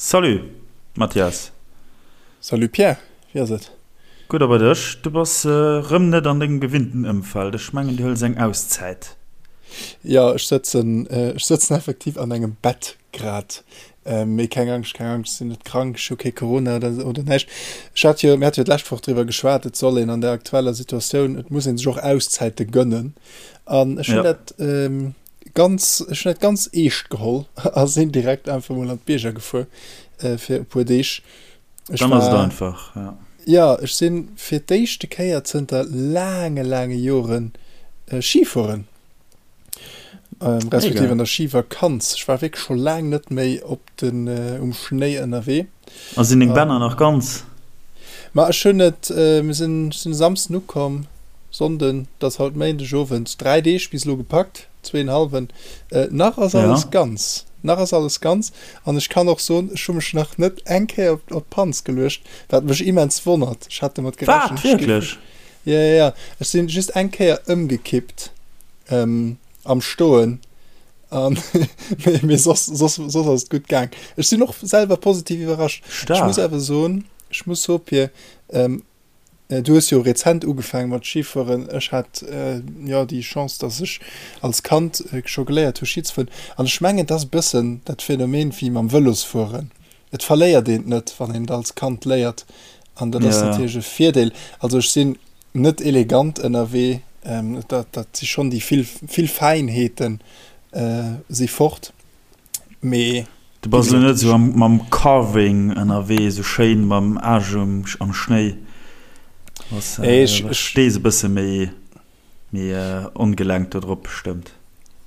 Salut Mathias. Salut Pierre, wéi ass et? Gutt a bei dech? Du bass rëm net an dengem gewinnten Ëmfeld, ech mengen du hëls eng Auszäit. Jo, ech sëtzen, ech sëtzen effektiv an engem Bett grad. Mee keng Angscht, keng Angscht, ech sinn net krank, ech hu kee Corona oder, oder näischt. Ech hat jo, mir hate jo d'lescht Woch driwwer geschwat, et soll een an der aktueller Situatioun, et muss ee sech och Auszäite gönnen. An ech hunn dat ganz, ech hunn dat ganz eescht geholl a sinn direkt einfach mol an d'Bierger gefuer fir e puer Deeg. Ech Dann ass et einfach, ja. Jo, ech si fir d'éischte Kéier zënter laange, laange Joren Ski fueren, respektiv an der Schivakanz. Ech war wierklech scho laang net méi op den, um Schnéi ënnerwee. A sinn deng Bänner nach ganz? Ma ech hunn et, mir sinn, ech sinn e Samsden ukomm, Sonnden, et ass haut Méindeg Owend, 3 Deeg bis elo gepackt, zweenhalwen. Nach ass alles ganz, nach ass alles ganz. An ech kann och soen, ech hu mech nach net eng Kéier op d'Panz geluecht, wat mech immens wonnert. Ech hat domat gerechent. Wat? Wierklech? Jo, jo, jo. Ech sinn just eng Kéier ëmgekippt am Stoen. An mee soss, soss, soss ass et gutt gaang. Ech sinn och selwer positiv iwwerrascht. Ech muss awer soen, ech muss soen, Pir, du hues jo rezent ugefaange mat Schifueren. Ech hat jo déi Chance, dass ech als Kand scho geléiert hu Schi ze fueren. An ech mengen, et ass e bëssen dat Phänomen wéi mam Vëlosfueren. Et verléiert een et net, wann een et als Kand léiert. An dat ass natierlech e Virdeel. Also ech sinn net elegant ënnerwee, dat dat si schonn déi vill vill Fäinheeten si fort, mee. Du bass elo net esou mam Carving ënnerwee, esou schéin mam Aarsch am Schnéi, stees e bësse méi méi ongelenk do drop bestëmmt.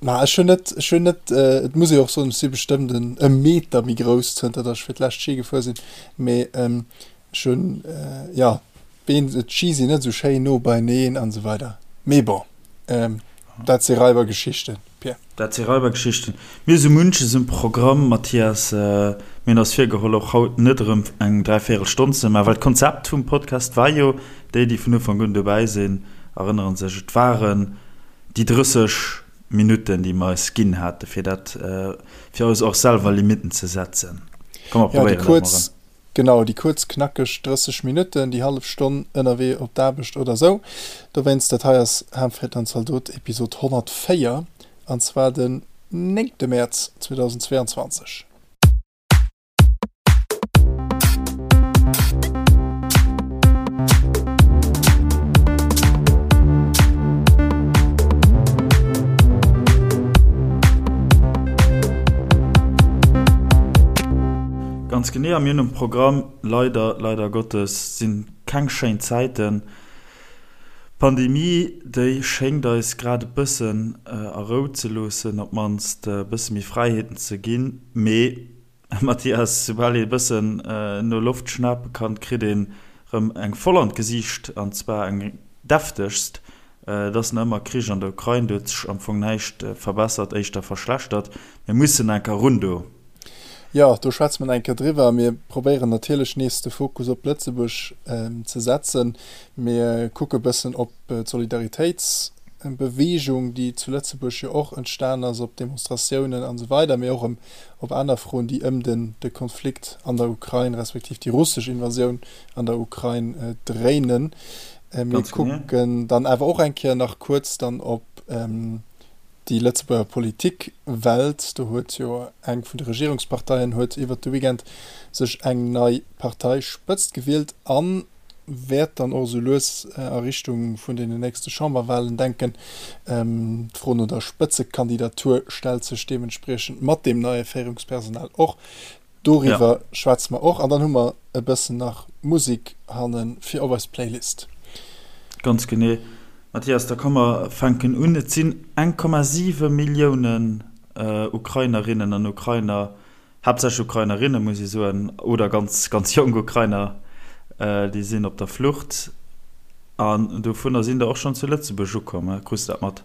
Ma ech hunn net, ech hunn net, et muss ee och soen, ech si bestëmmt en e Meter méi grouss zënter datt ech fir d'lescht Schi gefuer sinn, mee ech hunn, jo, D'Been, d'Ski sinn net esou schéin no beineen an esou weider. Mee bon, dat si Raibergeschichten, Pierre. Dat si Raibergeschichten. Mir hu sou munches um Programm, Mathias. Mir hunn eis virgeholl, och haut net erëm eng dräivéierel Stonn ze maachen, well d'Konzept vum Podcast war jo, déi, déi vun Ufank un dobäi sinn, erënnere sech, et waren déi 30 Minutten, déi mer eis ginn hate fir dat, fir eis och selwer Limitten ze setzen. Komm, mer probéieren dat mol erëm. Genau, déi kuerz knackeg 30 Minutten, déi hallef Stonn ënnerwee op d'Aarbecht oder sou. Dowéinst, dat hei ass Hamfried an Zaldot Episod 104, an zwar den néngte Mäerz 2022. Ganz genee, a mir hunn um Programm, leider, leider Gottes, sinn keng schéin Zäiten. D'Pandemie, déi schéngt eis grad e bëssen a Rou ze loossen, op d'mannst e bësse méi Fräiheeten ze ginn. Mee, Mathias, soubal ee e bëssen no Loft schnape kann, kritt een erëm eng voll an d'Gesiicht, an zwar eng deftegst. Et ass nach ëmmer Krich an der Ukrain, do huet sech am Fong näischt verbessert, éischter verschlechtert. Mir mussen enker run do. Jo, do schwätze mer nach eng Kéier driwwer. Mir probéieren natierlech nees de Fokus op Lëtzebuerg ze setzen. Mir kucke bëssen op d'Solidaritéitsbeweegung, déi zu Lëtzebuerg jo och entstan ass, op Demonstratiounen an esou weider, mee och op aner Froen, déi ëm de Konflikt an der Ukrain respektiv déi russesch Invasioun an der Ukrain dréinen. Mir kucken dann awer och eng Kéier nach kuerz dann op Déi Lëtzebuerger Politikwelt, do huet jo eng vun de Regierungsparteien huet iwwert de Weekend sech eng nei Parteispëtzt gewielt a wäert dann och esou lues a Richtung vun deenen nächste Chamberwahlen denken. D'Fro no der Spëtzekandidatur stellt sech deementspriechend mat deem neie Féierungspersonal och. Doriwwer schwätze mer och an dann hu mer e bëssen nach Musik hanne fir op eis Playlist. Ganz genee. Mathias, da komm mer fänken un. Et sinn 1,7 Milliounen Ukrainerinnen an Ukrainer, haaptsächlech Ukrainerinne muss ee soen, oder ganz, ganz jonk Ukrainer, déi sinn op der Flucht. An dovunner sinn der och schonn zu Lëtzebuerg ukomm. Krus de dat mat?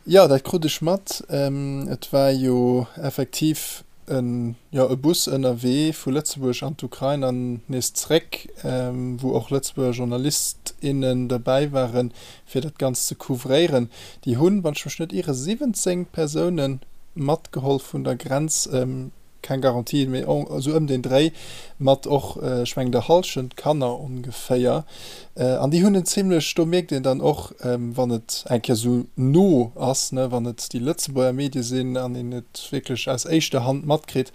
Jo, dat krut ech mat. Et war jo effektiv en, jo, e Bus ënnerwee vu Lëtzebuerg an d'Ukrain an nees zréck, wou och Lëtzebuerger Journalist, innen derbäi waren, fir dat Ganzt ze couvréieren. Déi hunn, wann ech mech net iere, 17 Persoune matgeholl vun der Grenz. Keng Garantie, mee esou ëm deen Dréi, mat och, ech mengen, der Hallschent Kanner ongeféier. An déi hunn en zimlech, do mierkt een dann och, wann et eng Kéier esou no ass, ne, wann et déi Lëtzebuerger Medie sinn an een et wierklech aus éischter Hand matkritt,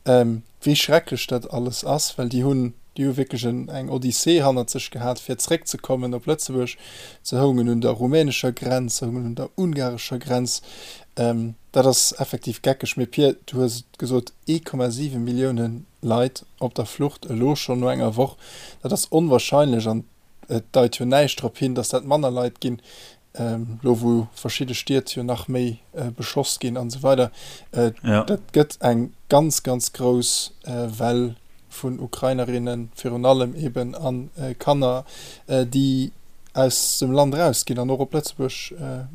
wéi schrecklech dat alles ass, well déi hunn, déi hu wierklech eng Odyssee hannert sech gehat, fir zréckzekommen op Lëtzebuerg. Se houngen un der rumänescher Grenz, se houngen un der ungarescher Grenz. Dat ass effektiv geckeg. Mee Pir, du hues et gesot, 1,7 Millioune Leit op der Flucht elo schonn no enger Woch, dat ass onwahrscheinlech an et deit jo näischt drop hin, datt dat manner Leit ginn, elo wou verschidde Stied jo nach méi beschoss ginn an esou weider. Dat gëtt eng ganz, ganz grouss Well vun Ukrainerinnen, virun allem eben a Kanner, déi aus dem Land erausginn an och op Lëtzebuerg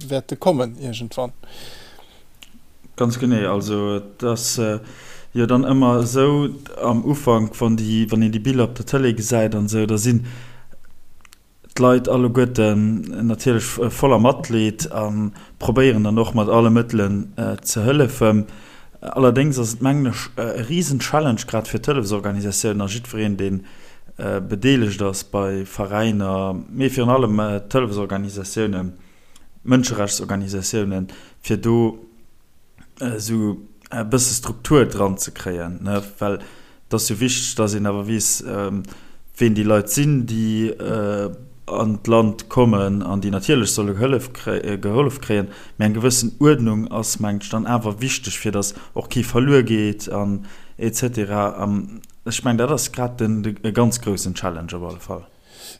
wäerte kommen iergendwann. Ganz genee. Also et ass jo dann ëmmer esou am Ufank, wann déi, wann een déi Biller op der Tëlee gesäit an esou, da sinn d'Leit alleguerten natierlech voller Matleed a probéieren dann och mat alle Mëttelen ze hëllefen. Allerdéngs ass et, mengen ech, e risen Challenge, grad fir d'Hëllefsorganisatiounen a jiddwereen, dee bedeelegt ass bei Veräiner, mee virun allem d'Hëllefsorganisatiounen, Mënscherechtsorganisatiounen, fir do esou e bësse Struktur dran ze kréien, ne, well et ass jo wichteg, dass een awer weess, ween déi Leit sinn, déi an d'Land kommen an déi natierlech solle Hëllef gehollef kréien. Mee eng gewëssen Uerdnung ass, mengen ech, dann awer wichteg, fir dass och kee verluer geet an et cetera. An ech mengen, dat ass grad den e ganz groussen Challenge op alle Fall.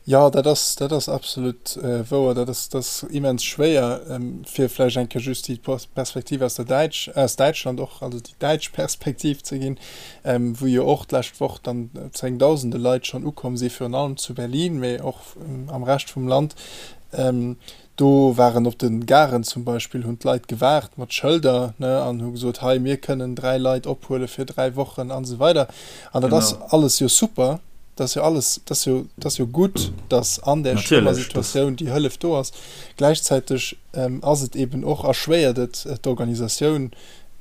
Jo, dat ass, dat ass absolut wouer. Dat ass, dat ass immens schwéier, fir vläicht eng Kéier just déi Perspektiv aus der Däitsch, aus Däitschland och, also déi däitsch Perspektiv ze ginn, wou jo och d'lescht Woch dann zéngdausende Leit schonn ukomm si virun allem zu Berlin, mee och am Rescht vum Land. Do waren op de Garen zum Beispill, hunn d'Leit gewaart mat Schëlder, ne, an hu gesot, hei, mir kënnen 3 Leit ophuele fir 3 Wochen an esou weider. An dat ass alles jo super, dat ass jo alles, dat ass jo, dat ass jo gutt, datt an där schlëmmer Situatioun déi Hëllef do ass. Gläichzäiteg ass et eeben och, erschwéiert et d'Organisatioun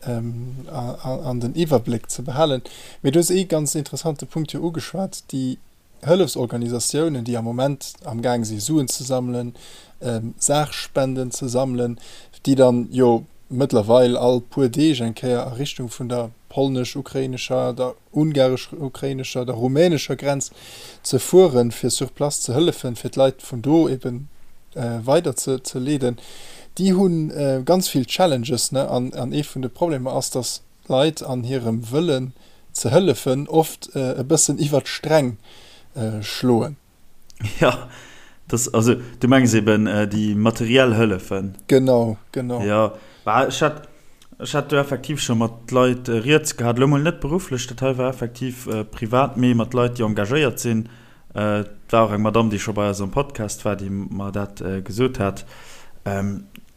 an den Iwwerbléck ze behalen. Mee du hues ee ganz interessante Punkt jo ugeschwat, déi Hëllefsorganisatiounen, déi am Moment am Gaang si Suen ze sammelen, Saachspenden ze sammelen, déi dann jo mëttlerweil all puer Deeg eng Kéier a Richtung vun der polnesch-ukrainescher, der ungaresch-ukrainescher, der rumänescher Grenz ze fueren, fir sur place ze hëllefen, fir d'Leit vun do eben weider ze leeden, déi hu ganz vill Challenges. An ee vun de Problemer ass, datt Leit an hirem Wëllen ze hëllefen oft e bëssen iwwer d'Sträng schloen. Jo, dass, also du mengs eben déi materiell Hëllefen? Genau, genau. Jo, bah ech hat, ech hat do effektiv scho mat Leit rieds gehat, elo mol net berufflech, dat hei war effektiv privat, mee mat Leit déi engagéiert sinn. Et war och eng Madamm déi scho bei eis am Podcast war, déi mer dat gesot hat,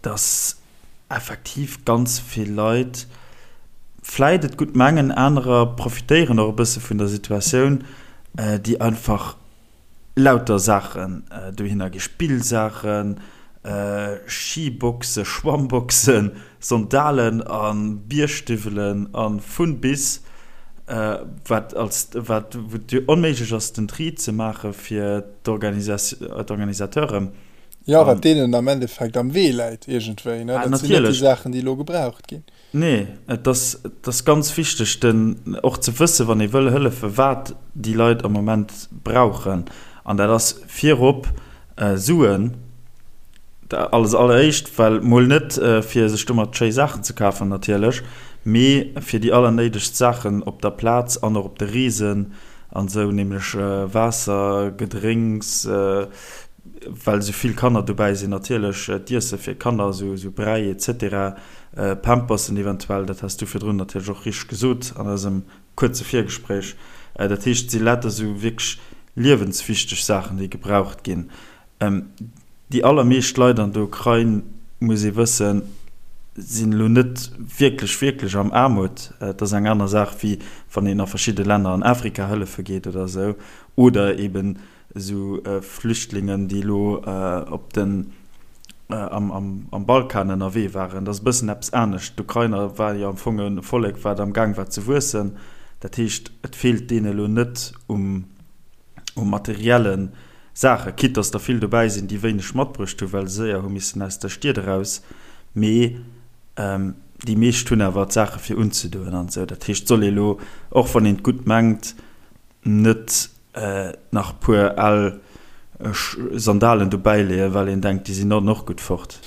dass effektiv ganz vill Leit vläit et gutt mengen, anerer profitéieren och e bësse vun der Situatioun, déi einfach lauter Saachen dohinner gi, Spillsaachen, Skiboxen, Schwammboxen, Sandalen a Biergstiwwelen a vun bis, wat als wat wou et onméiglech ass den Tri ze maache fir d'Organisateuren. Jo, wat deenen am Endeffekt am Wee läit iergendwéi, ne? Dat sinn net déi Saachen, déi elo gebraucht ginn. Nee, et ass, et ass ganz wichteg, den, och ze wëssen, wann ee wëll hëllefen, wat déi Leit am Moment brauchen. An dat ass virop Suen, als alleréischt, well mol net fir sech domat schéi Saachen ze kafen natierlech, mee fir déi allernéidegst Saachen op der Plaz an och op de Reesen an esou, nämlech Waasser, Gedrénks, well esou vill Kanner dobäi sinn, natierlech d'Iesse fir Kanner, esou Bräi et cetera, Pampersen eventuell, dat has du virdrun natierlech och richteg gesot an eisem kuerze Virgespréich. Dat heescht, et si lauter esou wierklech liewenswichteg Saachen, déi gebraucht ginn. Déi allermeescht Leit an der Ukrain, muss ee wëssen, sinn elo net wierklech, wierklech am Aarmut. Et ass eng aner Saach, wéi wann een a verschidde Länner an Afrika hëllefe geet oder esou, oder eeben esou Flüchtlingen, déi elo op den. Am Balkan ënnerwee waren. Dat ass e bëssen eppes anescht. D'Ukrainer war jo am Fong e Vollek, wat am Gaang war ze wuessen. Dat heescht, et feelt deene elo net um u materielle Saachen, quitte dass der vill dobäi sinn, déi wéineg matbruecht hunn, well se séier hu missen aus der Stied eraus, mee déi meescht hunn awer d'Saache fir unzedoen an esou. Dat heescht, et soll ee elo, och wann een et gutt mengt, net nach e puer al Sandalen dobäi leeën, well een denkt, déi sinn dann och gutt fort.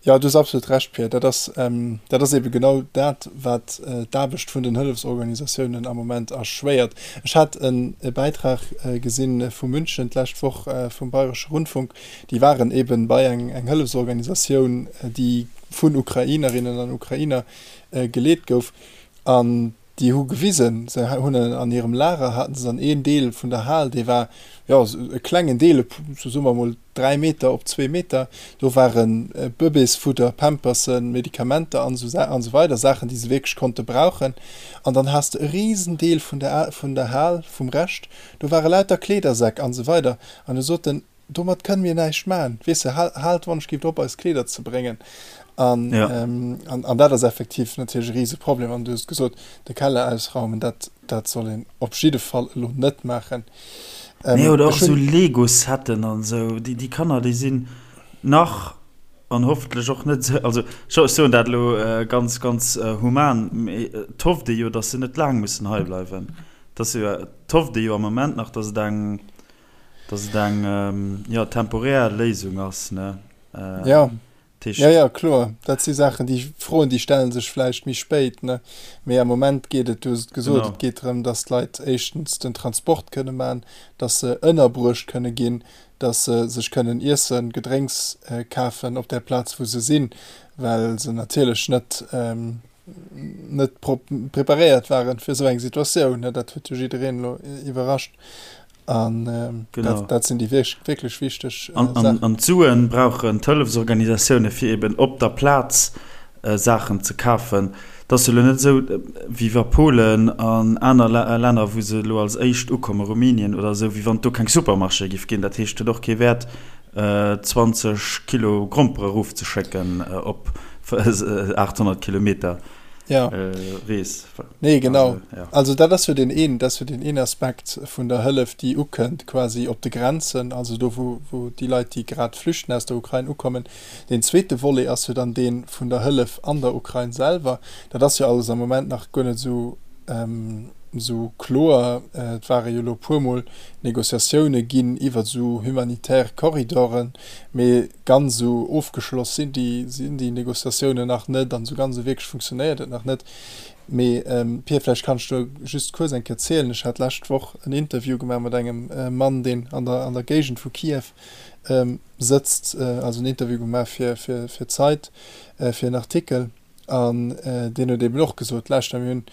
Jo, du hues absolut Recht, Pierre. Dat ass, dat ass eebe genau dat, wat d'Aarbecht vun den Hëllefsorganisatiounen am Moment erschwéiert. Ech hat e Bäitrag gesinn vu München d'lescht Woch vum Bayresche Rundfunk. Déi waren eebe bei eng Hëllefsorganisatioun, déi vun Ukrainerinnen an Ukrainer geleet gouf. An Déi hu gewisen, se hunn an hirem Lager haten se dann een Deel vun der Hal, dee war, jo, e klengen Deel, sou soe mer emol 3 Meter op 2 Meter, do ware Bëbeesfudder, Pampersen, Medikamenter an esou an esou weider, Saachen, déi se wierklech konnte brauchen. An dann has de e Risendeel vun der vun der Hal, vum Rescht, do ware lauter Kleedersäck an esou weider. An du sot en, Domat kënne mir näischt maachen. Weess de, haalt wann-ech-gift op, eis Kleeder ze bréngen. An, ja. ähm, an, an dat ass effektiv natierlech e Riseproblem. An du hues gesot, de Keller ausraumen, dat, dat soll een op jidde Fall elo net maachen. Ähm, nee, oder och esou Lego-Setten an esou. Déi, déi Kanner, déi sinn nach an hoffentlech och net esou, also ech soen dat elo äh, ganz, ganz äh, human, mee et hofft ee jo, datt se net laang mussen hei bleiwen. Dass jo, et hofft ee jo am Moment nach, datt et eng, Dass et eng, jo, temporär Léisung ass, ne? Ja. Ja, ja, kloer. Dat si Saachen, déi Froen, déi stelle sech vläicht méi spéit, ne? Mee am Moment geet et, du hues et gesot, et geet drëm, dass d'Leit éischtens den Transport kënne maachen, dass se ënnerbruecht kënne ginn, dass se sech kënnen Iessen, Gedrénks kafen op där Plaz, wou se sinn, well se natierlech net, net preparéiert waren fir esou eng Situatioun. Dat huet jo jiddereen elo iwwerrascht. An ähm, genau. dat, dat sinn déi wierklech wichteg äh, an, an, an d'Suen brauchen d'Hëllefsorganisatioune fir eben op der Plaz äh, Saachen ze kafen. Et ass jo elo net esou, äh, wéi wa Polen an aner Länner, wou se elo als éischt ukommen, Rumänien oder esou, wéi wann et do keng Supermarchéë giff ginn. Dat heescht, et huet och kee Wäert, 20 Kilo Grompere erofzeschécken op 800 Kilometer Rees. Nee, genau. Also dat ass jo deen een, dat ass jo deen een Aspekt vun der Hëllef, déi ukënnt quasi op de Grenzen, also do wou, wou déi Leit, déi grad flüchten aus der Ukrain, ukommen. Deen zweete Volet ass jo dann dee vun der Hëllef an der Ukrain selwer. Dat ass jo alles am Moment nach guer net esou, esou kloer. Et ware jo elo e puermol Negociatioune ginn iwwer esou humanitär Corridoren, mee ganz esou ofgeschloss sinn déi, sinn déi Negociatiounen nach net an esou ganz esou wierklech funktionéiert et nach net. Mee Pir, vläicht kanns du just kuerz eng Kéier zielen, ech hat d'lescht Woch en Interview gemaach mat engem Mann, deen an der, an der Géigend vu Kiew sëtzt, also en Interview gemaach fir, fir, fir d'Zeit, fir en Artikel. An deen huet eben och gesot, Lauschter, mir hunn,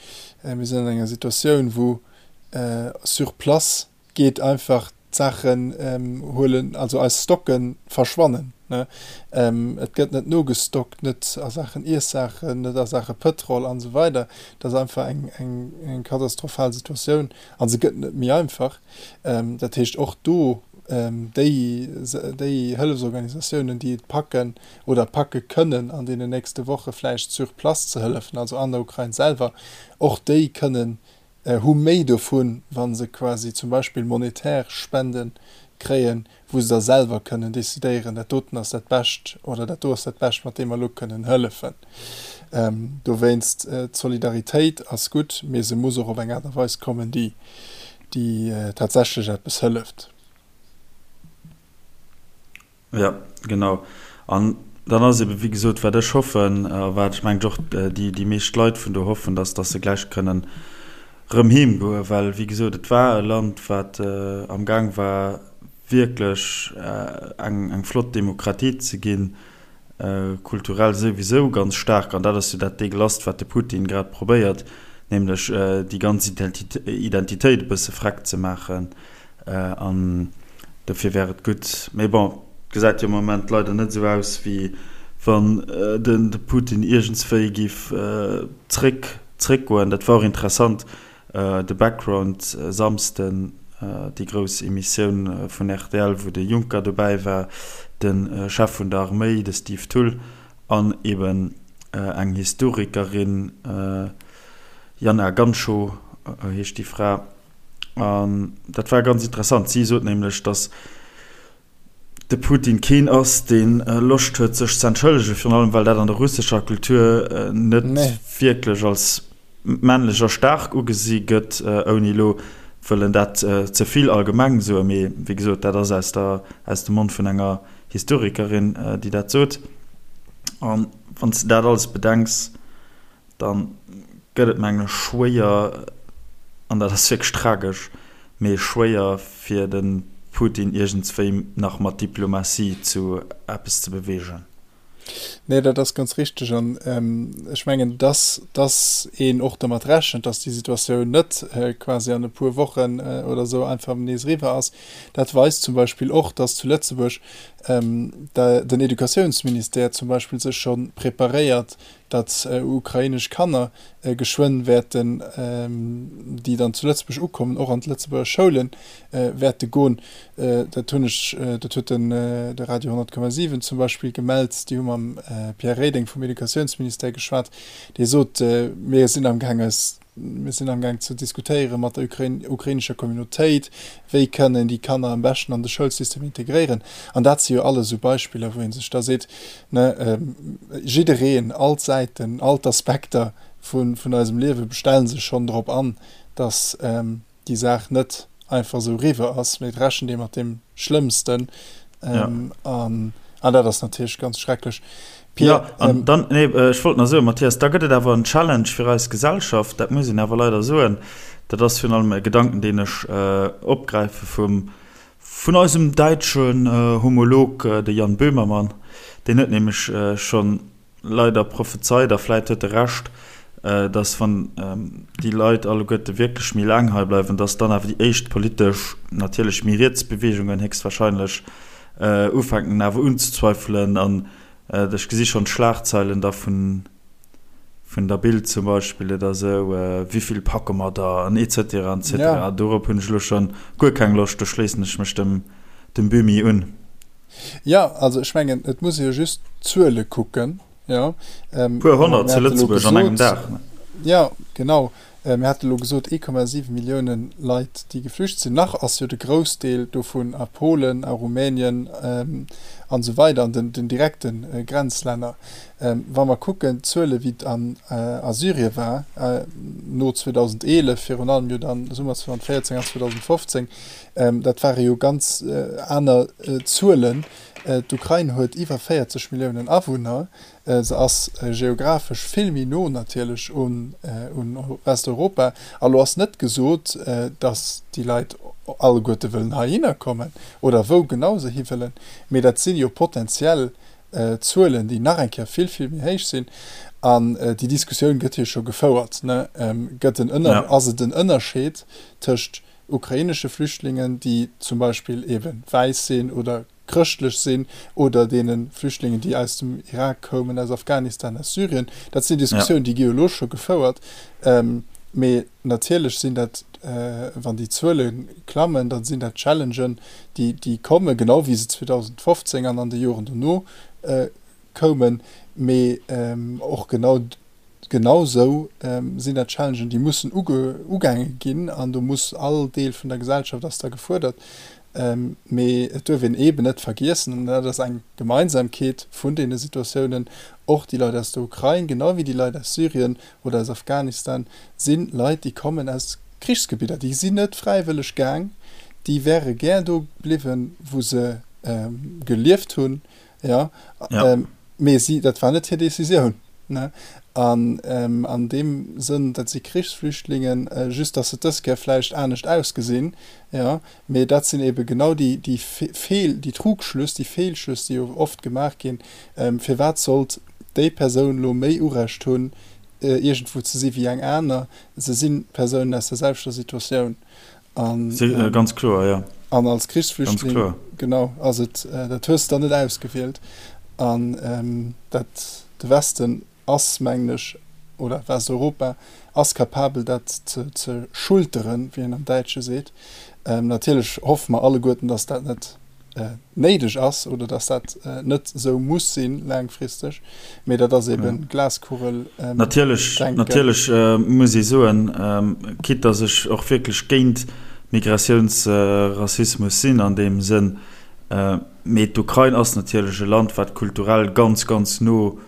mir sinn an enger Situatioun, wou sur place geet einfach d'Saachen huelen, also eis Stocke verschwannen. Et gëtt net nogestockt, net a Saachen Iessaachen, net a Saache Pëtrol an esou weider. Dat ass einfach eng katastrophal Situatioun a se gëtt net méi einfach. Dat heescht, och do déi Hëllefsorganisatiounen, déi et packen, oder packe kënnen an deenen nächste Woche vläicht sur place ze hëllefen, also an der Ukrain selwer, och déi kënnen, hu méi dovun, wa se quasi zum Beispill monetär Spende kréien, wou se da selwer kënnen decidéieren, dat doten ass dat Bescht oder dat do ass dat Bescht, mat deem mer elo kënnen hëllefen. Dowéinst, d'Solidaritéit ass gutt, mee se muss och op eng Aart a Weis kommen, déi tatsächlech eppes hëlleft. Jo, genau. An dann ass ebe wéi gesot, wat ech hoffen a wat ech mengen och déi déi meescht Leit vun do hoffen, dass dass se gläich kënnen rëm heem goen, well wéi gesot, et war e Land, wat amgaang war wierklech eng eng flott Demokratie ze ginn, kulturell souwisou ganz staark. An dat ass jo dat Degelasst, wat de Putin grad probéiert, nämlech déi ganz Identitéit e bësse freck ze maachen. An dofir wär et gutt. Mee bon, et gesäit jo am Moment leider net esou aus, wéi wann de Putin iergendswéi géif zréck, zréckgoen. Dat war och interessant, de Background Samsden. déi grouss Emissioun vun rtl, wou de Juncker dobäi war, de Chef vun der Arméi, de Steve Thull, an eben eng Historikerin, Jana Ganschow heescht déi Fra. An dat war ganz interessant. Si sot nämlech, datt de Putin keen ass, dee Loscht huet, sech ze entschëllegen, virun allem well dat an der russescher Kultur net wierklech als männlech a staark ugesi gëtt, ouni elo wëllen dat ze vill allgemeng soen. Mee wéi gesot, dat ass aus der, aus dem Mond vun enger Historikerin, déi dat sot. A wann s de dat alles bedenks, Dann gëtt et mengen ech schwéier, an dat ass wierklech tragesch, mee schwéier fir de Putin iergendswéi nach mat Diplomatie zu eppes ze beweegen. Nee, dat ass ganz richteg. An ech mengen, dass, dass een och dermat rechent, dass déi Situatioun net quasi an e puer Wochen oder esou einfach nees eriwwer ass. Dat weist zum Beispill och, dass zu Lëtzebuerg den Educatiounsministère zum Beispill sech scho preparéiert, datt ukrainesch Kanner geschwënn wäerten, déi dann zu Lëtzebuerg ukommen, och an d'Lëtzebuerger Schoule wäerte goen. Dat hunn ech, dat huet den de Radio 100,7 zum Beispill gemellt. Déi hu mam Pierre Reding vum Educatiounsministère geschwat, dee sot, Mir sinn amgaang eis Mir sinn amgaang ze diskutéiere mat der ukrainescher Communautéit, wéi kënn een déi Kanner am beschten an de Schoulsystem integréieren. An dat si jo alles esou Beispiller, wou ee sech da seet, ne, jiddereen, all d'Säiten, all d'Aspekter vun eisem Liewe bestelle sech schonn drop an, datt déi Saach net einfach esou eriwwer ass, mee et rechent ee mat deem Schlëmmsten. An dat ass natierlech ganz schrecklech. Pierre, ja, an dann, nee, ech wollt nach soen, Mathias, da gëtt et awer en Challenge fir eis Gesellschaft, dat muss een awer leider soen. Dat ass virun allem e Gedanken, deen ech opgräife vum, vun eisem däitschen Homolog, de Jan Böhmermann. Deen huet nämlech schonn leider prophezeit, a vläit huet e Recht, dass, wann déi Leit alleguerte wierklech méi laang hei bleiwen, dass dann awer déi éischt politesch, natierlech méi riets Beweegungen héchstwahrscheinlech ufänken awer unzezweifelen an Ech gesi schonn d'Schlagzeilen da vun der Bild zum Beispill oder esou, Wivill packe mer der an et cetera an et cetera. Dorop hunn ech elo schonn guer keng Loscht, do schléissen ech mech dem Böhmi un. Jo, also ech mengen, et muss ee jo just d'Zuele kucken, jo. Puer honnert zu Lëtzebuerg an engem Dag. Jo, genau. Mir hate elo gesot, 1,7 Millioune Leit, déi geflücht sinn. Nach ass jo de Groussdeel dovun a Polen, a Rumänien an esou weider, an den direkte Grenzlänner. Wa mer kucken, d'Zuele wéi et a Syrien war no 2011, virun allem jo dann Summer 2014 an 2015, dat ware jo ganz aner Zuelen. D'Ukrain huet iwwer 40 Milliounen Awunner. Se ass geographesch vill méi no natierlech un Westeuropa. A lo ass net gesot, datt déi Leit alleguerte wëllen heihinner kommen oder wou genau se hiwëllen, mee dat si jo potenziell Zuelen, déi nach eng Kéier vill, vill méi héich sinn. An déi Diskussioun gëtt jo scho gefouert, ne? Gëtt en Ënner, ass et en Ënnerscheed tëscht ukrainesche Flüchtlingen, déi zum Beispill eebe wäiss sinn oder chrëschtlech sinn oder deene Flüchtlingen, déi aus dem Irak koumen, aus Afghanistan, aus Syrien. Dat sinn Diskussiounen, déi gi jo elo scho gefouert. Mee natierlech sinn dat, wann déi Zuele klammen, da sinn dat Challengen, déi kommen, genau wéi se 2015 an an de Joren dono koumen. Mee och genau Genau sou sinn dat Challengen, déi mussen ugaange ginn an do muss all Deel vun der Gesellschaft ass da gefuerdert. Mee et duerf een eeben net vergiessen, an dat ass eng Gemeinsamkeet vun deene Situatiounen, och déi Leit aus der Ukrain, genau wéi déi Leit aus Syrien oder aus Afghanistan, si Leit, déi kommen aus Krichsgebidder. Déi sinn net fräiwëlleg gaang, déi wäre gär do bliwwen, wou se gelieft hunn, Jo, mee si, dat war net hir Decisioun. Ne? An an deem Sënn, dat si Krichsflüchtlingen, just datt se dës Kéier vläicht anescht ausgesinn, jo, mee dat sinn eebe genau déi, déi Feel, déi Trugschlüss, déi Feelschlüss, déi jo oft gemaach ginn, Firwat sollt déi Persoun elo méi Urecht hunn, iergendwou ze si wéi eng aner? Se si Persounen aus der selwechter Situatioun. An, ähm, ganz kloer, ja. An als Krichsflüchtling, genau, ass et, äh, dat hues de dann net ausgewielt. An ähm, dat, de Westen ass, mengen ech, oder Westeuropa ass capabel dat ze schulteren, wéi een am Däitsche seet. Natierlech hoffe mer alleguerten, datt dat net néideg ass oder datt dat net esou muss sinn laangfristeg, mee dat ass eben Glaskugel-Denken. Natierlech, natierlech muss ee soen, quitte datt ech och wierklech géint Migratiounsrassismus sinn an deem Sënn, mee d'Ukrain ass natierlech e Land, wat kulturell ganz, ganz no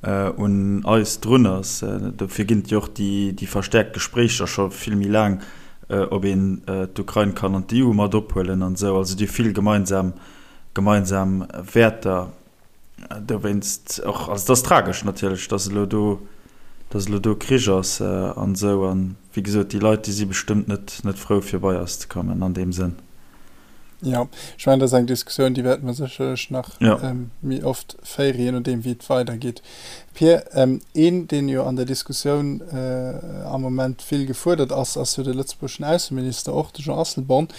un eis drun ass. Dofir ginn et jo och déi verstäerkt Gespréicher scho vill méi laang, ob een d'Ukrain kann an d'EU mat ophuelen an esou. Also déi vill gemeinsam gemeinsam Wäerter. Dowéinst och, also et ass tragesch natierlech, datt elo do, datt elo do Krich ass an esou. An wéi gesot, déi Leit, déi si bestëmmt net net frou fir bei eis ze kommen an deem Sënn. Jo, ech mengen, dat ass eng Diskussioun, déi wäerte mer sécherlech nach méi oft féieren, je nodeem wéi et weidergeet. Pir, een, deen jo an der Diskussioun am Moment vill gefuerdert ass, ass jo de lëtzebuergeschen Ausseminister, och de Jean Asselborn.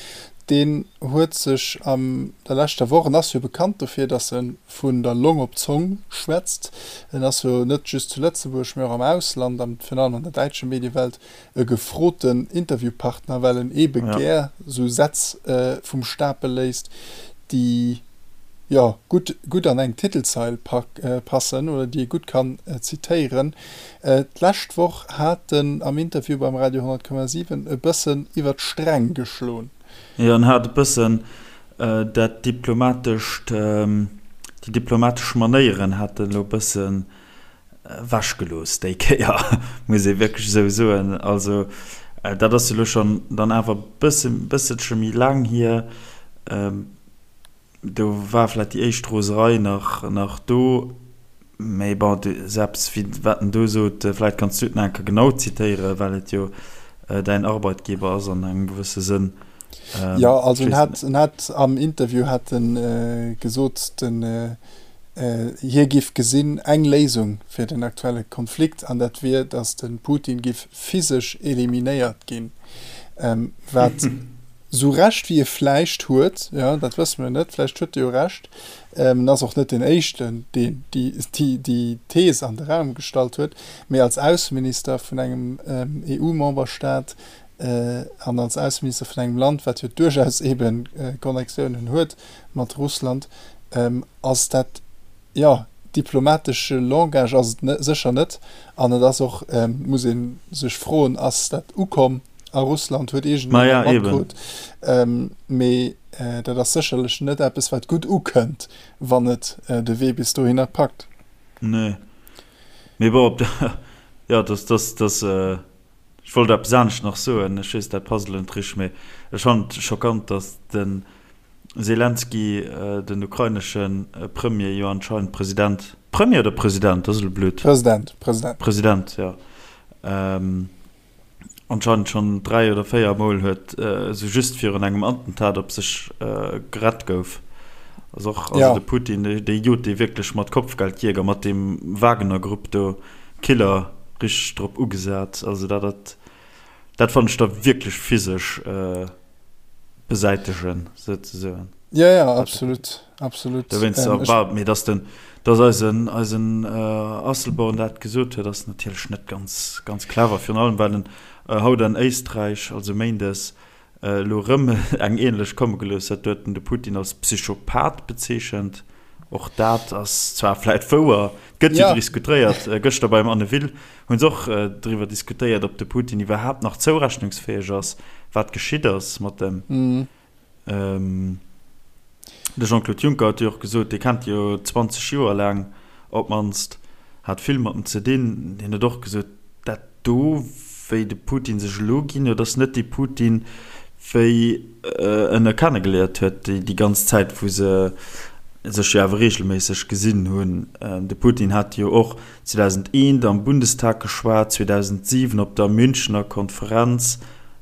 Deen huet sech an der leschter Woch, en ass jo bekannt dofir, datt e vun der Long op d'Zong schwätzt, en ass jo net just zu Lëtzebuerg, mee och am Ausland, virun allem an der däitsche Mediewelt, e gefroten Interviewpartner, well en eebe gär sou Sätz vum Stapel léisst, déi, jo, gutt, gutt an eng Titelzeil passen oder déi ee gutt kann zitéieren. D'lescht Woch hat en am Interview beim Radio 100,7 e bëssen iwwer d'Sträng geschloen. Jo, en hat e bëssen dat diplomatescht, déi diplomatesch Manéieren hat en elo e bëssen Ewechgelooss déi Kéier, muss ee wierklech esou soen. Also dat ass jo elo schonn dann awer e bësse bësselche méi laang hier. Do war vläicht déi éischt Roserei nach nach do. Mee bon, selbst wéi wat en do sot, vläicht kanns du et nach eng Kéier genau zitéieren, well et jo däin Arbeitgeber ass an engem gewësse Sënn. Jo, also en hat en hat am Interview hat en gesot, den Hie giff gesinn eng Léisung fir den aktuelle Konflikt, an dat wier, datt de Putin giff physesch eliminéiert ginn. Wat sou Recht wéi e vläicht huet, jo, dat wësse mir net, vläicht huet e jo Recht, en ass och net deen éischten, deen déi Thees an de Raum gestallt huet, mee als Ausseminister vun engem EU-Memberstaat an als Ausseminister vun engem Land, wat jo duerchaus eebe Connectiounen huet mat Russland, Ass dat, jo, diplomatesche Langage ass et sécher net. An et ass och, muss ee sech froen, ass dat ukomm a Russland, huet iergendeen dat matkritt? Mee dat ass sécherlech net eppes, wat gutt ukënnt, wann et de Wee bis dohinner packt. Nee. Mee bon, op der, jo, dass, dass, dass, ech wollt eppes anescht nach soen, ech weess, dat passt elo net richteg, mee ech fannen et schockant, dass de Selenskyj, den ukrainesche Premier, jo anscheinend President, Premier oder President, dat ass elo blöd. President, President. President, jo. Anscheinend schonn 3 oder 4 Mol huet, esou just virun engem Attentat op sech gerett gouf. Ass och, also de Putin, dee jot dee wierklech mat Kopfgeldjäger, mat deem Wagner-Grupp do, Killer, richteg drop ugesat. Also dat, dat fannen ech da wierklech physesch. Besäitegen, souzesoen. Ja, ja, absolut, absolut. Dowéinst, ähm, ech, mee dass den, dass eisen, eisen Asselborn dat gesot huet, ass natierlech net ganz, ganz clever, virun allem well en haut an Éisträich, also méindes, elo erëm eng ähnlech komme gelooss huet. Do huet en de Putin als Psychopath bezeechent. Och dat ass zwar vläit wouer, gëtt jo diskutéiert, gëschter beim Anne Will hu se och driwwer diskutéiert, ob de Putin iwwerhaapt nach zourechnungsfäeg ass, wat geschitt ass mat em. De Jean-Claude Juncker huet jo och gesot, dee kennt jo 20 Joer laang op d'mannst, hat vill mat em ze dinn, deen huet och gesot, dat do, wéi de Putin sech elo ginn huet, ass net dee Putin, wéi en e kennegeléiert huet, déi ganz Zäit, wou se sech jo awer reegelméisseg gesinn hunn. De Putin hat jo och 2001 am Bundestag geschwat, 2007 op der Münchener Konferenz,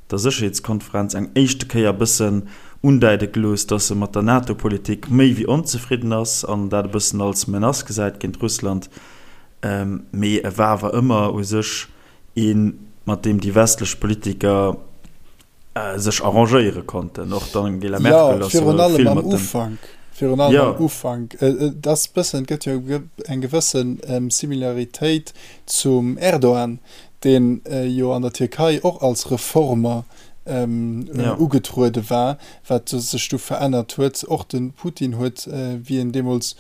der Sécherheetskonferenz, eng éischte Kéier e bëssen undäide gelooss, datt e mat der NATO-Politik méi wéi onzefridden ass an dat e bëssen als Menace gesäit géint Russland. Mee e war awer ëmmer u sech een, mat deem déi westlech Politiker sech arrangéiere konnten. Och d'Angela Merkel ass jo vill mat dem. Virun allem am Ufank. Et ass bëssen, et gëtt jo eng gewësse Similaritéit zum Erdogan, deen jo an der Tierkei och als Reformer ugetruede war, wat sech du verännert huet. Och de Putin huet, wéi en deemools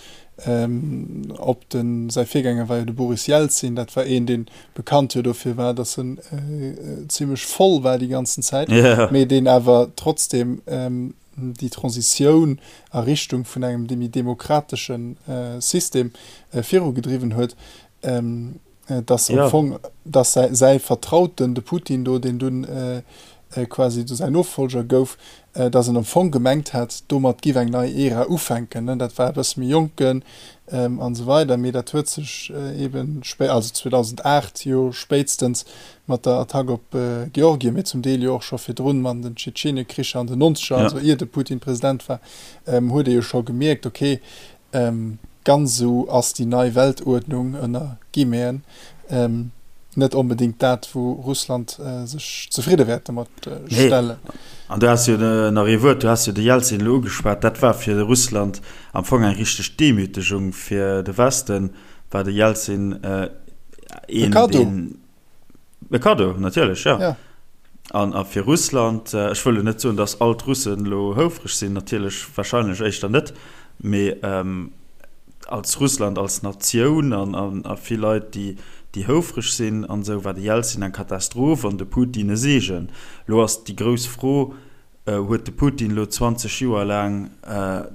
op de, säi Virgänger war jo de Boris Jelzin, dat war een, dee bekannt jo dofir war, datt en zimlech voll war déi ganzen Zäit, mee deen awer trotzdeem déi Transitioun a Richtung vun engem méi demokratesche System virugedriwwen huet, dass am Fong, dass säi Vertrauten, de Putin do, deen dunn quasi do säin Nofolger gouf, dass en am Fong gemengt hat, domat giff eng nei Ära ufänken. Dat war e bësse méi jonken an esou weider, mee dat huet sech eeben spé, also 2008 jo spéitstens mat der Attack op Georgien, mee zum Deel jo och scho virdrun mat den Tschetschenekricher an den Nonzeger, also ier de Putin President war, huet ee jo scho gemierkt, okay, ganz esou ass déi nei Weltuerdnung, ënner Guillemeten, net onbedéngt dat, wou Russland sech zefridde wäert domat stellen. Nee, an du has jo nach ee Wuert, du has jo de Jelzin elo ugeschwat, dat war fir Russland am Fong eng richteg Demütegung, fir de Westen war de Jelzin een, deen. E Kaddo, natierlech, jo. Ja. An a fir Russland, ech wëll elo net soen, datt all d'Russen elo houfreg sinn, natierlech warscheinlech éischter net, mee als Russland als Natioun an a vill Leit, déi déi houfreg sinn an esou, war de Jelzin eng Katastroph an de Putin e Seegen. Elo ass déi grouss Fro, Huet de Putin elo 20 Joer laang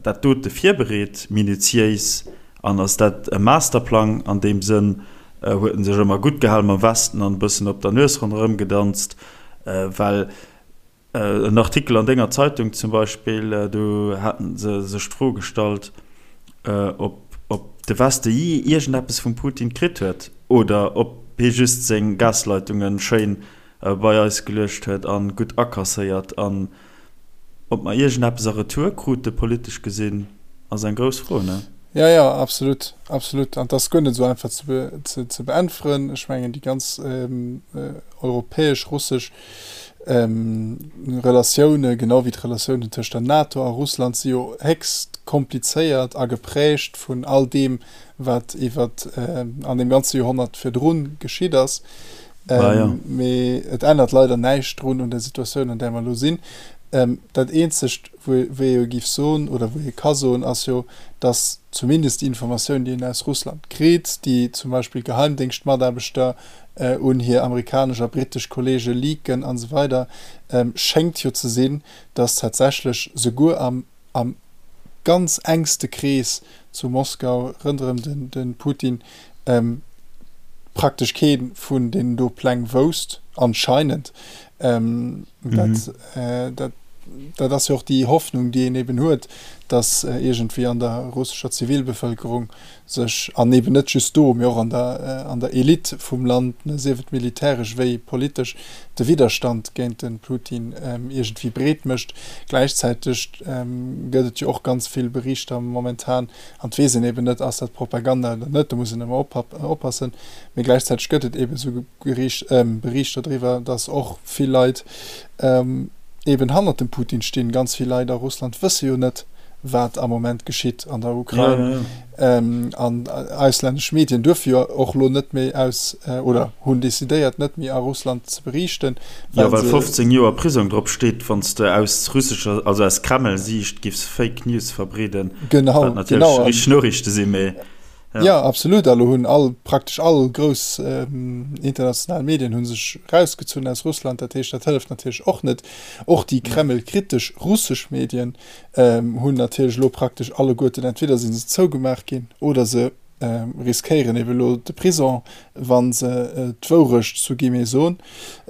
dat dote virbereet, minutiéis, an ass dat e Masterplang an deem Sënn? Huet en sech ëmmer gutt gehal mam Westen an e bëssen op der Nues ronderëm gedanzt? Well en Artikel an denger Zeitung zum Beispill, do haten se sech d'Fro gestallt, ob de Weste jee iergendeppes vum Putin kritt huet oder ob hie just seng Gasleitunge schéin bei eis geluecht huet an gutt akasséiert. An ob mer iergendeppes a Retour krute politesch gesinn, ass eng grouss Fro, ne? Jo, jo, absolut, absolut. An et ass guer net esou einfach ze ze beäntweren. Ech mengen, déi ganz europäesch-russesch Relatioune, genau wéi d'Relatiounen tëscht der NATO a Russland, si jo héchst komplizéiert a geprägt vun all deem, wat iwwer an deem ganze Joerhonnert virdrun geschitt ass. Mee et ännert leider näischt drun un der Situatioun, an där mer elo sinn. Dat Eenzegt, wou ee jo géif soen oder wou ee ka soen, ass jo, datt zumindest déi Informatioun, déi een aus Russland kritt, déi zum Beispill Geheimdéngschtmataarbechter un hir amerikanesch a brittesch Kolleege leaken an esou weider, schéngt jo ze sinn, datt tatsächlech souguer am am ganz engste Krees zu Moskau rënderëm de Putin praktesch kee vun deenen do Pläng wousst, anscheinend. Dat, dat ass jo och déi Hoffnung, déi een eben huet, datt iergendwéi an der russescher Zivilbevëlkerung sech, an eben net just do, mee och an der, an der Elite vum Land, sief et militäresch wéi politesch, de Widderstand géint de Putin iergendwéi breet mécht. Gläichzäiteg gëtt et jo och ganz vill Berichter momentan, an et weess een eben net, ass dat Propaganda oder net, do muss een ëmmer oppassen, mee gläichzäiteg gëtt et eben esou Berichter driwwer, datt och vill Leit eben hannert dem Putin stinn. Ganz vill Leit a Russland wësse jo net, wat am Moment geschitt an der Ukrain. An auslännesch Medien duerfe jo och elo net méi aus, oder hunn decidéiert, net méi a Russland ze beriichten. Jo, well 15 Joer Prisong drop steet, wann s de aus russescher, also aus Kreml-Siicht giffs Fake News verbreeden. Genau, wat natierlech richteg Noriichte sinn, mee. Jo, absolut. A lo hunn all, praktesch all grouss international Medien hu sech erausgezunn aus Russland. Dat heescht, dat hëlleft natierlech och net. Och déi kremlkritesch russesch Medien hunn natierlech elo praktesch alleguerten, entweder si se zougemaach ginn oder se riskéieren ebe lo de Prison, wa se d'Wourecht zu Guillemets soen.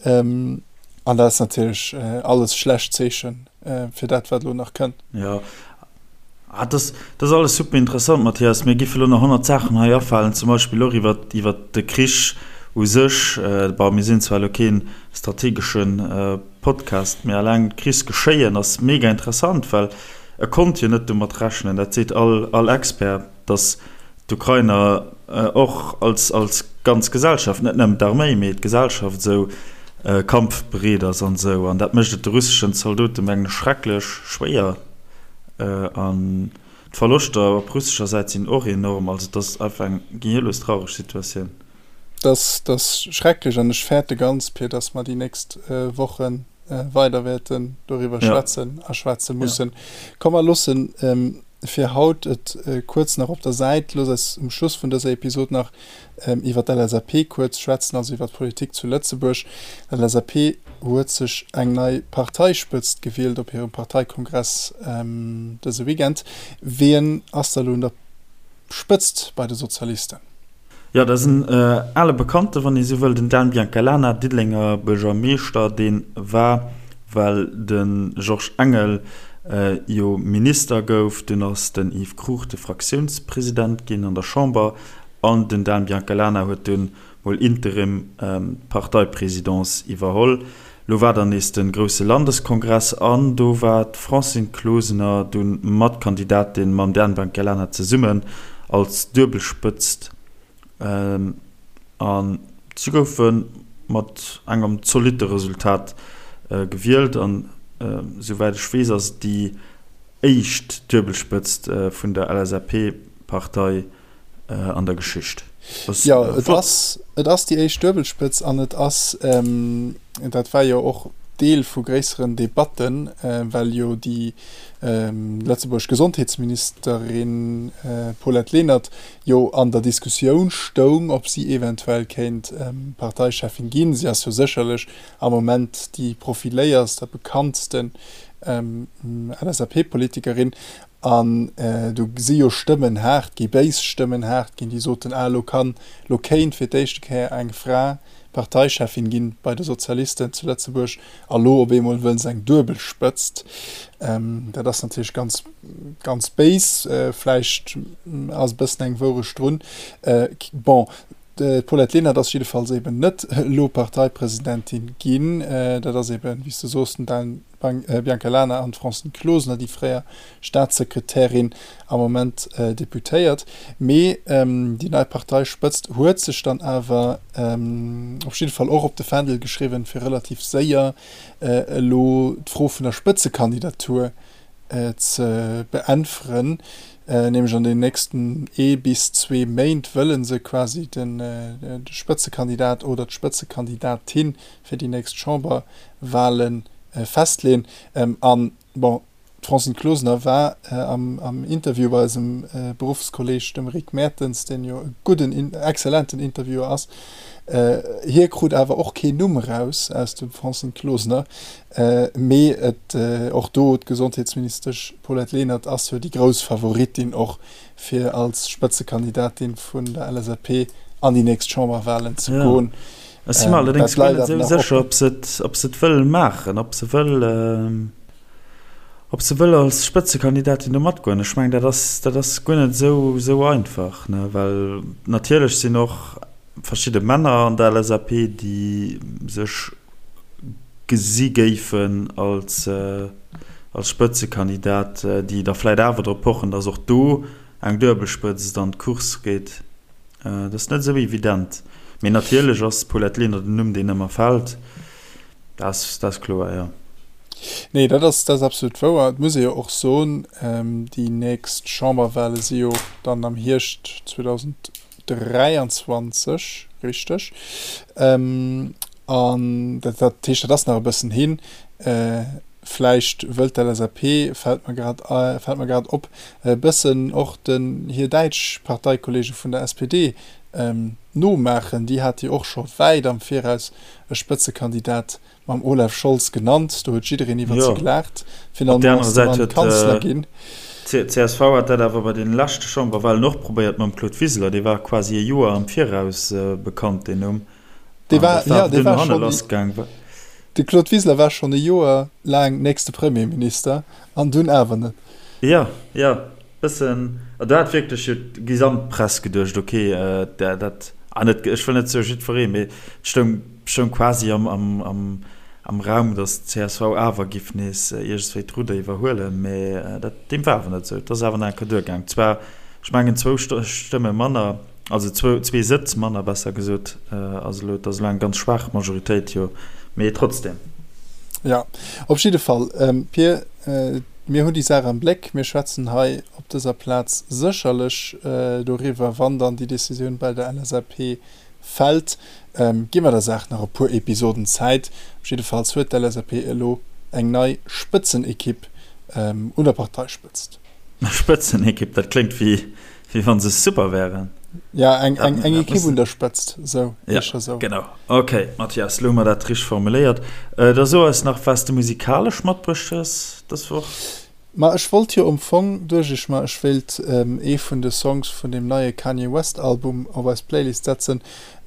An dat ass natierlech alles schlecht Zeeche fir dat, wat elo nach kënnt. Jo, Ah, dat ass alles super interessant, Mathias. Mir géife lo nach 100 Saachen hei afalen, zum Beispill och iwwer, iwwer de Krich u sech. Bon, mir sinn zwar elo kee strategesche Podcast, mee alleng d'Krichsgeschéien ass mega interessant, well e konnt jo net domat rechnen, dat seet all, all Expert, datt d'Ukrainer och als, als ganz Gesellschaft, net nëmmen d'Arméi, mee d'Gesellschaft esou kampfbereet ass an esou. An dat mécht et de russeschen Zaldote mengen ech schrecklech schwéier. An. D'Verloschter op russescher Säit sinn och enorm. Also et ass einfach eng gehirlos traureg Situatioun. Dat ass schrecklech an ech fäerte ganz, Pir, dass mer déi nächst Woche weider wäerten doriwwer schwätzen a schwätze mussen. Komm mer loossen fir haut et kuerz nach op der Säit. Looss eis um Schluss vun dëser Episod nach iwwer d'LSAP kuerz schwätzen, also iwwer d'Politik zu Lëtzebuerg. D'LSAP huet sech eng nei Parteispëtzt gewielt op hirem Parteikongress dëse Weekend. Wien ass da elo un der Spëtzt bei de Sozialisten? Jo, dat ass en ale Bekannte, wann ee sou wëll, den Dan Biancalana, Diddelenger Buergermeeschter. Dee war, well de Georges Engel jo Minister gouf, dunn ass den Yves Cruchten Fraktiounspresident ginn an der Chamber an den Dan Biancalana huet dunn mol interim d'Parteipresidence iwwerholl. Lo war dann nees de grousse Landeskongress an do war d'Francine Closener dunn mat Kandidatin mam Dan Biancalana zesummen als Duebelspëtzt an si goufe mat engem zolitte Resultat gewielt an souwäit ech weess ass et déi éischt Duebelspëtzt vun der LSAP-Partei. an der Geschicht. Jo, et ass, et ass déi éischt Duebelspëtz an et ass, dat war jo och Deel vu gréisseren Debatten, well jo déi lëtzebuergesch Gesondheetsministerin Paulette Lenert jo an der Diskussioun stoung, ob si eventuell kéint Parteicheffin ginn. Si ass jo sécherlech am Moment déi profiléierst a bekanntsten LSAP-Politikerin. An do si jo Stëmmen haart ginn, béis Stëmmen haart ginn, déi soten, ah elo kann, elo kéint fir d'éischte Kéier eng Fra Parteicheffin ginn bei de Sozialisten zu Lëtzebuerg, a lo op eemol wëll se eng duebel Spëtzt. Dat ass natierlech ganz, ganz béis. Vläicht ass e bëssen eng Wourecht drun. Bon, d'Paulette Lenert ass jiddefalls eben net elo Parteipresidentin ginn. Dat ass eben, wéi s de soos, den Dan Bianca Lana an d'Francine Closener, déi fréier Staatssekretärin, am Moment Deputéiert. Mee déi nei Parteispëtzt huet sech dann awer op jidde Fall och op de Fändel geschriwwen, fir relativ séier elo d'Fro vun der Spëtzekandidatur ze beäntweren. Nämlech an den nächsten ee bis zwee Méint wëlle se quasi de Spëtzekandidat oder d'Spëtzekandidatin fir déi nächst Chamberwahlen festleeën. An, bon, d'Francine Closener war am Interview bei eisem Beruffskolleg, dem Rick Mertens, deen jo e gudden, exzellenten Interviewer ass. Hie krut awer och keen Numm eraus aus dem Francine Closener. Mee et, och do, d'Gesondheetsministesch Paulette Lenert ass jo déi grouss Favoritin och fir als Spëtzekandidatin vun der LSAP an déi nächst Chamberwahlen ze goen. Ech si mer allerdéngs guer net esou sécher, ob se et, ob se et wëll maachen, ob se wëll, ob se wëll als Spëtzekandidatin do matgoen. Ech mengen, dat ass, dat ass guer net esou, esou einfach, ne, well natierlech sinn och verschidde Männer an der LSAP, déi sech gesi géifen als, als Spëtzekandidat, déi da vläicht awer drop pochen, datt och do eng Duebelspëtzt an d'Course geet. Dat ass net esou evident. Mee natierlech ass d'Paulette Lenert en Numm, deen ëmmer fält. Dat ass, dat ass kloer, jo. Nee, dat ass, dat ass absolut wouer. Et muss ee jo och soen, déi nächst Chamberwale si jo dann am Hierscht 2023, richteg? An dat, dat heescht, dat ass nach e bëssen hin. Vläicht wëllt d'LSAP, fält mer grad, fält mer grad op, e bëssen och den hir däitsch Parteikollege vun der SPD nomaachen. Déi hate jo och scho wäit am Viraus e Spëtzekandidat mam Olaf Scholz genannt. Do huet jiddereen iwwert se gelaacht. Finalement ass de Mann Kanzler ginn. D'CSV hat dat awer bei deene leschte Chamberwahlen och probéiert mam Claude Wiseler. Dee war quasi e Joer am Viraus bekannt, deen Numm. Dee war, jo, dee war schonn, de Claude Wiseler war schonn e Joer laang nächste Premierminister an dunn awer net. Jo, jo, bëssen, do hat wierklech jo d'gesamt Press geduecht, ok, dat, ah net, ech wëll net soe jiddweree, mee et stoung, stoung quasi am, am, am, am Raum, datt d'CSV awer giff nees iergendswéi d'Rudder iwwerhuelen, mee dat, deem war awer net esou. Et ass awer nach eng Kéier duergaang, zwar, ech mengen zwou Stëmme manner. Also zwee Sëtz manner, besser gesot, ass elo, et ass elo eng ganz schwaach Majoritéit, jo, mee trotzdem. Jo, op jidde Fall, Pir, mir hunn déi Saach am Bléck. Mir schwätzen hei op. dëser Plaz sécherlech doriwwer, wann dann déi Decisioun bei der LSAP fält. Gi mer der Saach nach e puer Episoden Zäit. Op jiddefalls huet d'LSAP elo eng nei Spëtzenekipp un der Parteispëtzt. Spëtzenekipp, dat kléngt wéi wa se super wären. Ja, eng Ekipp un der Spëtzt, esou, éischer esou. Genau. Ok, Mathias, elo hu mer dat richteg formuléiert. Da so eis nach, wat s de musikalesch matbruecht hues dës Woch. Ma ech wollt jo am Fong, duecht ech mer, ech wéilt ee vun de Songs vun deem neie Kanye West Album op eis Playlist setzen.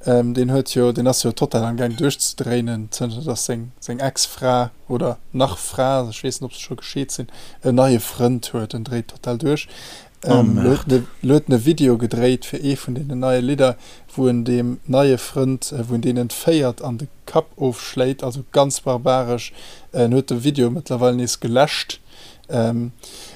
Deen huet jo, deen ass jo total am Gaang duerchzedréinen, zënter dass seng seng Ex-Fra, oder nach Fra, ech weess net ob se scho gescheet sinn, en neie Frënd huet. En dréit total duerch. Oh Lo huet en lo huet en e Video gedréit fir ee vun deenen neie Lidder, wou en deem neie Frënd, wou en deen entféiert an de Kapp ofschléit, also ganz barbaresch. En huet de Video mëttlerweil nees geläscht.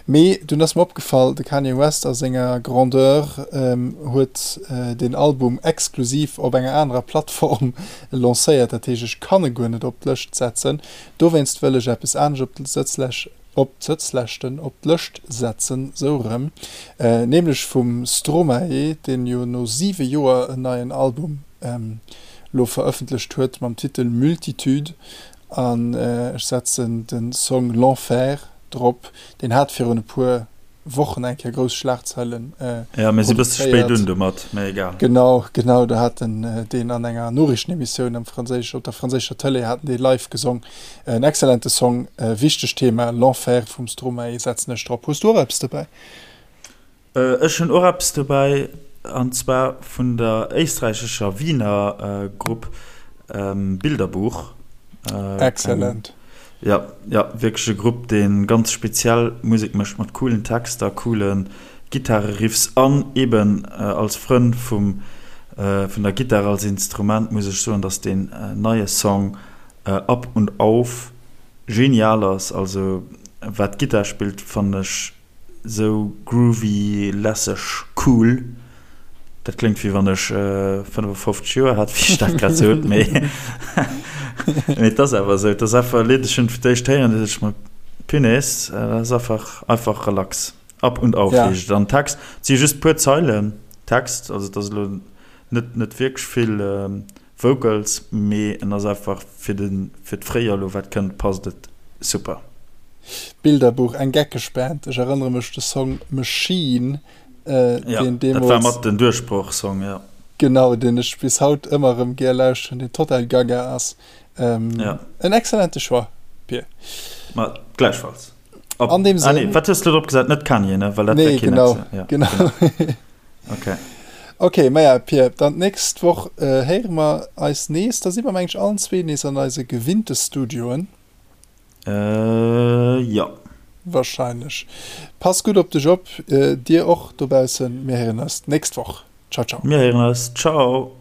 Mee dunn ass mer opgefall, de Kanye West a senger Grandeur huet deen Album exklusiv op enger anerer Plattform lancéiert. Dat heescht, ech kann e guer net op d'Lëscht setzen. Dowéinst wëll ech eppes anescht op d'Sëtzlech, op d'Sëtzleschten, op d'Lëscht setzen, sou erëm, nämlech vum Stromae, deen jo no siwe Joer en neien Album lo verëffentlecht huet mam Titel Multitude an ech setzen de Song L'Enfer drop. Deen hat virun e puer Wochen eng Kéier grouss Schlagzeilen Jo, mir si bësse spéit un domat, mä egal. Genau, genau, do hat en deen an enger Noriichtenemissioun am franséisch, op der franséischer Tëlee hat en dee live gesong. En excellente Song, wichtegt Thema, L'Enfer vum Stromae setzen ech drop. Hues du och eppes dobäi? Ech hunn och eppes dobäi, an zwar vun der éisträichescher Wiener Grupp Bilderbuch. Excellent. Jo, jo, wierklech e Grupp, dee ganz speziell Musek mécht, mat coolen Texter, coole Gittareriffs an eben als Frënn vum, vun der Gittar als Instrument muss ech soen, dass deen neie Song Ab und Auf genial ass. Also wat d'Gittar spillt, fannen ech Sou groovy, lässeg, cool. Dat kléngt wéi wann ech 55 Joer hätt, wéi ech dat grad sot, mee mee et ass awer esou. Et ass einfach e Lidd, ech hunn et fir d'éischt héieren, du sot ech mer, Punaise, dat ass einfach einfach relax. Ab und auf heescht et. An Text, et si just puer Zeilen Text, also et ass elo net net wierklech vill Vocals, mee en ass einfach fir den fir d'Fréijoer elo wat kënnt passt et super. Bilderbuch, eng geckeg Band, ech erënnere mech de Song Machine, Ja, deen dat war mat den Duerchbroch-Song, ja. Genau, deen ech bis haut ëmmer erëm gär lauschteren, deen total gaga ass. Ja. En excellente Choix, Pir. Ma gläichfalls. Op, An deem ah nee, wat hues du drop gesat? Net Kanye, ne? Well dat wär keen genau, Ex. Ja, genau. genau. Okay. Okay, maja, Pir, dann d'nächst Woch héiere mer eis nees. Da si mer, meng ech, allen zwee nees an eise gewinnte Studioen. Äh, jo. Wahrscheinlech. Pass gutt op dech op, dir och dobaussen. Mir héieren eis d'nächst Woch. Ciao, ciao. Mir héieren eis. Ciao.